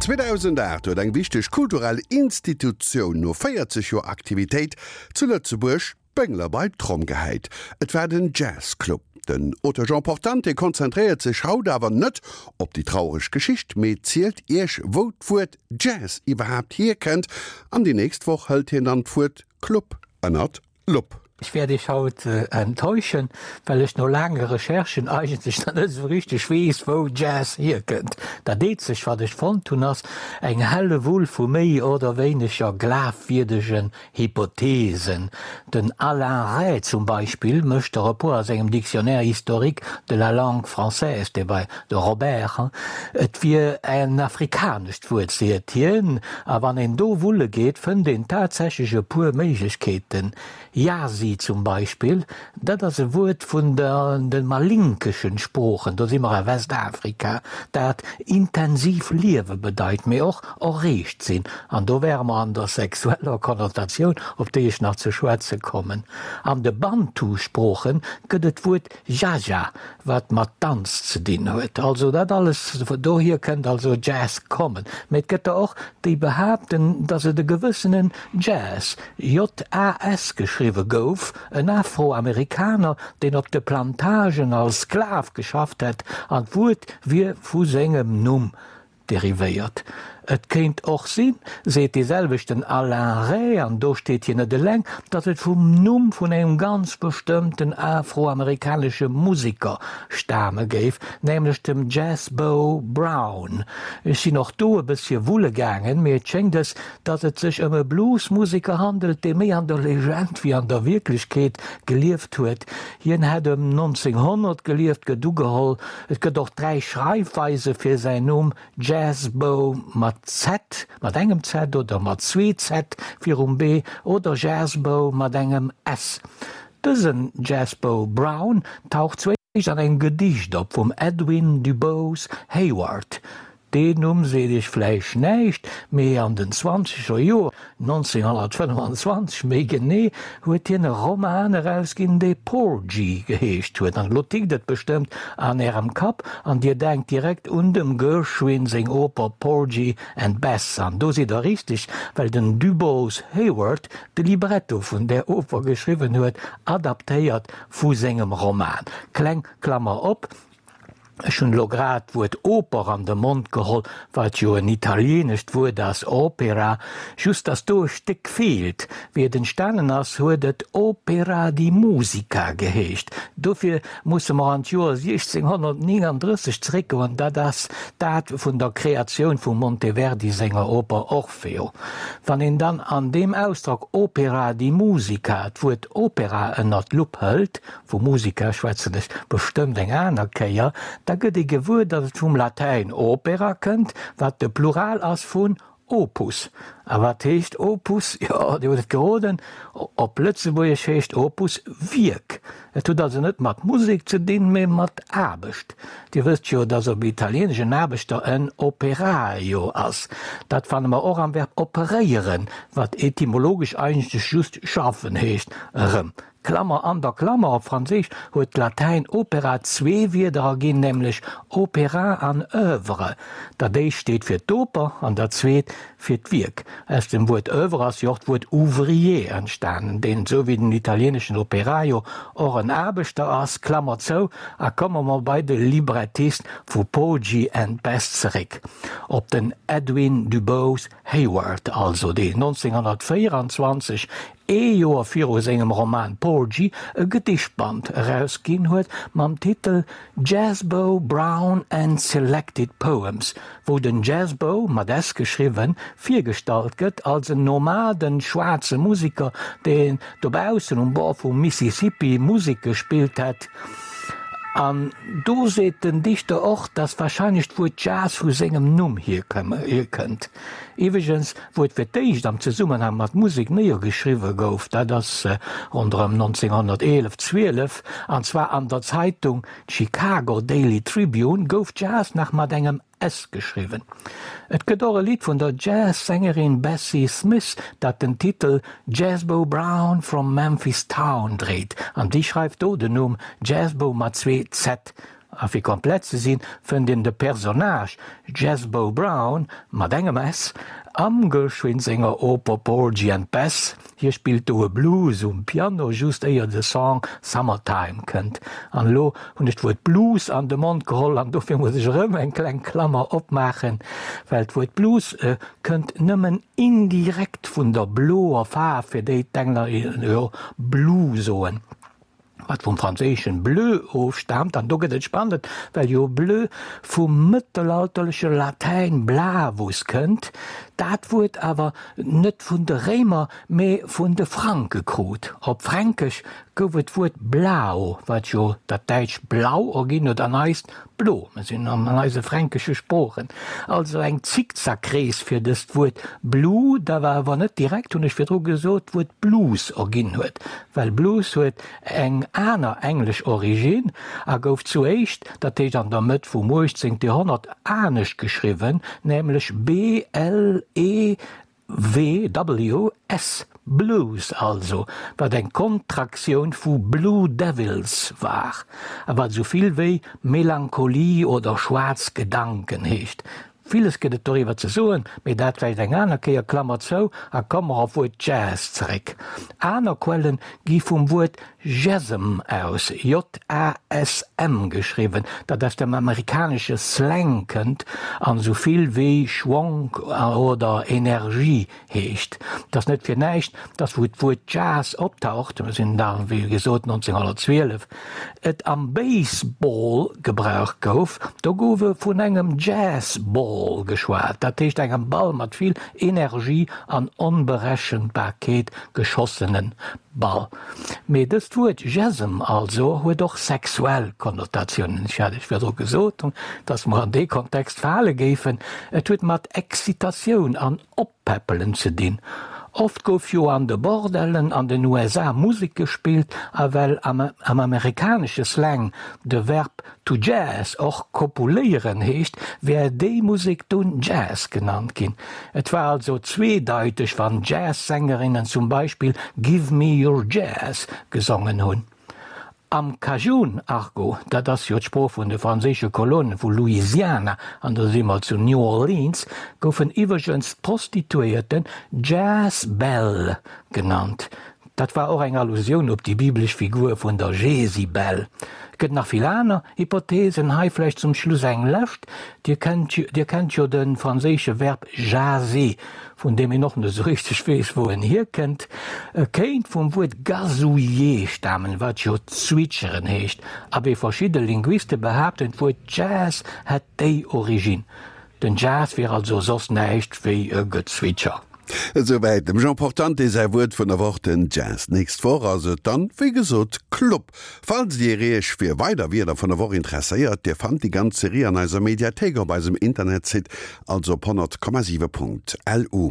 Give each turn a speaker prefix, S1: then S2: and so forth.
S1: 2008 huet eng wichteg kulturell Institutioun no 40 Joer Aktivitéit zu Lëtzebuerg d'Béngler bei d'Tromm gehäit. Et war den Jazz Club. Den Auteur Jean Portante konzentréiert sech haut awer net op déi traureg Geschicht, mee zielt Iech wou d'Wuert Jazz iwwerhaapt hierkënnt. An déi nächst Woch hëlt hien dann d'Wuert Club ënnert d'Lupp.
S2: Ech wäert Iech haut enttäuschen, well ech no laange Recherchen eigentlech nach net esou richteg weess, wou Jazz hierkënnt. Dat eenzegt, wat ech fonnt hunn, ass eng Hellewull vu méi oder wéineger glafwierdegen Hypothesen. Den Alain Rey zum Beispill mécht der e puer a sengem Dictionnaire historique de la langue française, dee bei de Robert, Et wier en afrikanescht Wuert, seet hien, a wann een do wulle geet, fënnt een tatsächlech e puer Méiglechkeeten. Yasi zum Beispill, dat ass e Wuert vun de malinkeschen Sproochen, do si mer a Westafrika, dat intensiv liewe bedeit, mee och erreegt sinn. An do wäre mer an der sexueller Konnotatioun, op déi ech nach ze schwätze kommen. An de Bantu-Sprooche gëtt et d'Wuert Jaja, wat mat Danz ze dinn huet. Also dat alles, dohier kënnt also Jazz kommen. Mee et gëtt der och, déi behaapten, datt et e gewëssenen Jazz, JAS geschriwwe gouf, en Afroamerikaner, deen op de Plantagen als Sklav geschafft hätt, an d'Wuert wier vu sengem Numm derivéiert. Et kéint och sinn, seet dee selwechten Alain Rey, an do steet hien net eleng, datt et vum Numm vun engem ganz bestëmmten afroamerikanesche Museker stame géif, nämlech dem Jazz-Bo Brown. Ech sinn och do e bëssche wulle gaangen, mee et schéngt es, datt et sech ëm e Bluesmuseker handelt, dee méi an der Legend wéi an der Wierklechkeet gelieft huet. Hien hätt ëm 1900 gelieft, gëtt ugeholl. Et gëtt och 3 Schreifweise fir säin Numm, Jazzbo mat Z, mat engem Z oder mat zwee Z virum B, oder Jazzbo mat engem S. Dësen Jazzbo Brown taucht zwéischt an engem Gedicht op vum Edwin DuBose Heyward. Deen Numm seet iech vläicht näischt, mee an den zwanzeger Joer, 1925 méi genee, huet hien e Roman erausginn, dee Porgy geheescht huet. An elo tickt et bestëmmt an ärem Kapp an dir denkt direkt un dem Gershwin seng Oper Porgy and Bess. An do sidd der richteg, well den DuBose Heyward de Libretto vun där Oper geschriwwen huet, adaptéiert vu sengem Roman. Kleng Klammer op. Ech hunn elo grad d'Wuert Oper an de Mond geholl, wat jo en italienescht Wuert ass, opera, just dass do e Stéck feelt. Wéi et entstanen ass, huet et Opera di musica geheescht. Dofir musse mer an d'Joer 1639 zeréckgoen, dat ass d'Date vun der Kreatioun vum Monteverdi senger Oper Orfeo. Wann een dann an deem Ausdrock Opera di musica d'Wuert Opera ënner d'Lupp hëlt, Vu Musica schwätzen ech bestëmmt eng aner Kéier, da gëtt ee gewuer, datt et vum Latäin opera kënnt, wat de Plural ass vun opus. A wat heescht Opus? Jo, Dir hutt et geroden, op Lëtzebuergesch heescht Opus Wierk. Et huet also net mat Musek ze dinn, mee mat Aarbecht. Dir wësst jo, datt op Italieenesch en Aarbechter en operaio ass. Dat fanne mer och am Verb operéieren, wat etymologesch eigentlech just schaffen heescht, erëm. Klammer an der Klammer, op Franséisch huet d'Latäin opera zwee Wierder erginn, nämlech opéra an oeuvre. Dat éischt steet fir d'Oper an dat zweet fir d'Wierk. Aus dem Wuert oeuvre ass jo och d'Wuert ouvrier entstanen, deen, esou wéi den italieeneschen operaio, och en Aarbechter ass. Klammer zou, a komme mer bei de Librettist vu Porgy and Bess zeréck, op den Edwin DuBose Heyward also, deen 1924 ee Joer viru sengem Roman Porgy e Gedichtband erausginn huet mam Titel Jazzbo Brown and Selected Poems, wou den Jazzbo, mat s geschriwwen, virgestallt gëtt als en nomaden schwaarze Museker, deen dobaussen um Bord vum Mississippi Musek gespillt hätt. An do seet den Dichter och, dass warscheinlech d'Wuert Jazz vu sengem Numm hierkënnt. Iwweregens, wou et fir d'éischt am Zesummenhang mat Musek néiergeschriwwe gouf, dat ass ronderëm 1911, 12, an zwar an der Zeitung Chicago Daily Tribune, gouf Jazz nach mat engem S geschriwwen. Et gëtt och e Lidd vun der Jazz-Sängerin Bessie Smith, dat den Titel Jazzbo Brown from Memphis Town dréit, an déi schreift do den Numm Jazzbo mat zwee Z. A fir komplett ze sinn, fënnt een de Personnage Jazzbo Brown, mat engem s, am Gershwin senger Oper Porgy and Bess. Hie spillt do e Blues um Piano, just éier de Song Summertime kënnt. An elo hunn ech d'Wuert Blues an de Mond geholl an dofir muss ech erëm eng kleng Klammer opmaachen, well d'Wuert Blues kënnt nëmmen indirekt vun der bloer Faarf, fir déi d'Engler jo blue soen. Wat vum franséischen bleu ofstaamt, an do gëtt et spannend, well jo bleu vum mëttelalterleche Latäin blavus kënnt, dat Wuert awer net vun de Réimer, mee vun de Franke krut. Op Fränkesch gouf et d'Wuert blau, wat jo dat däitscht blau erginn huet an eist Blo, mir sinn an eise fränkesche Sproochen, also eng Zickzackrees fir dëst Wuert blue, dat awer net direkt, hunn ech virdru gesot, d'Wuert Blues erginn huet, well Blues huet eng aner englesch Originn a gouf zuéischt, dat heescht an der Mëtt vum 18. Joerhonnert, anescht geschriwwen, nämlech b-l-e WWS, Blues also, wat eng Kontraktioun vu Blue Devils war, a wat esou vill wéi Melancholie oder schwaarz Gedanken heescht. Villes gëtt et doriwwer ze soen, mee dat vläicht eng aner Kéier, Klammer zou, a komme mer op d'Wuert Jazz zeréck. Aner Quellen gi vum Wuert Jazzm aus, J-A-S-M geschriwwen, dat aus dem amerikanesche Slang kënnt an esou vill wéi Schwonk oder Energie heescht. Et ass net fir näischt, dass wou d'Wuert Jazz optaucht, mir sinn da wéi gesot 1912, et am Baseball gebraucht gouf. Do gouf e vun engem Jazz-Ball geschwat, dat heescht engem Ball mat vill Energie an Onberechenbarkeet geschossene Ball. Mee dëst Wuert Jazzem also huet och sexuell Konnotatiounen. Ech hat Iech virdru gesot, dass mer an dee Kontext fale géifen. Et huet mat Excitatioun an Oppäppelen ze dinn. Oft gouf jo an de Bordellen an den USA Musek gespillt a well am amerikanesche Slang de Verb To jazz, och kopuléieren heescht, wär déi Musek dunn Jazz genannt ginn. Et war also zweedeiteg, wann Jazz-Sängerinnen zum Beispill Give me your jazz gesongen hunn. Am Cajun-Argot, dat ass jo d'Sprooch vun de franséische Kolonen vu Louisiana, an do si mer zu New Orleans, goufen iwwregens d'Prostituéierten Jazz-Belle genannt. Dat war och eng Allusioun op déi biblesch Figur vun der Jesibel. Et gëtt nach vill aner Hypothesen, hei vläicht zum Schluss eng lescht, Dir kennt Dir kennt jo de franséische Verb jaser, vun deem een och net esou richteg weess, wou en hierkënnt. E kéint vum Wuert gazouiller stamen, wat jo zwitscheren heescht. Abee, verschidde Linguiste behaapten, d'Wuert Jazz hätt déi Originn. Den Jazz wier also soss näischt wéi e Gezwitscher.
S1: Esouwäit dem Jean Portante säi Wuert vun der Woch, den Jazz. D'nächst Woch ass et dann, wéi gesot, Club. Falls Dir Iech fir weider Wierder vun der Woch interesséiert, Dir fannt déi ganz Serie an eiser Mediathéik op eisem Internetsite, also op 100,7.lu.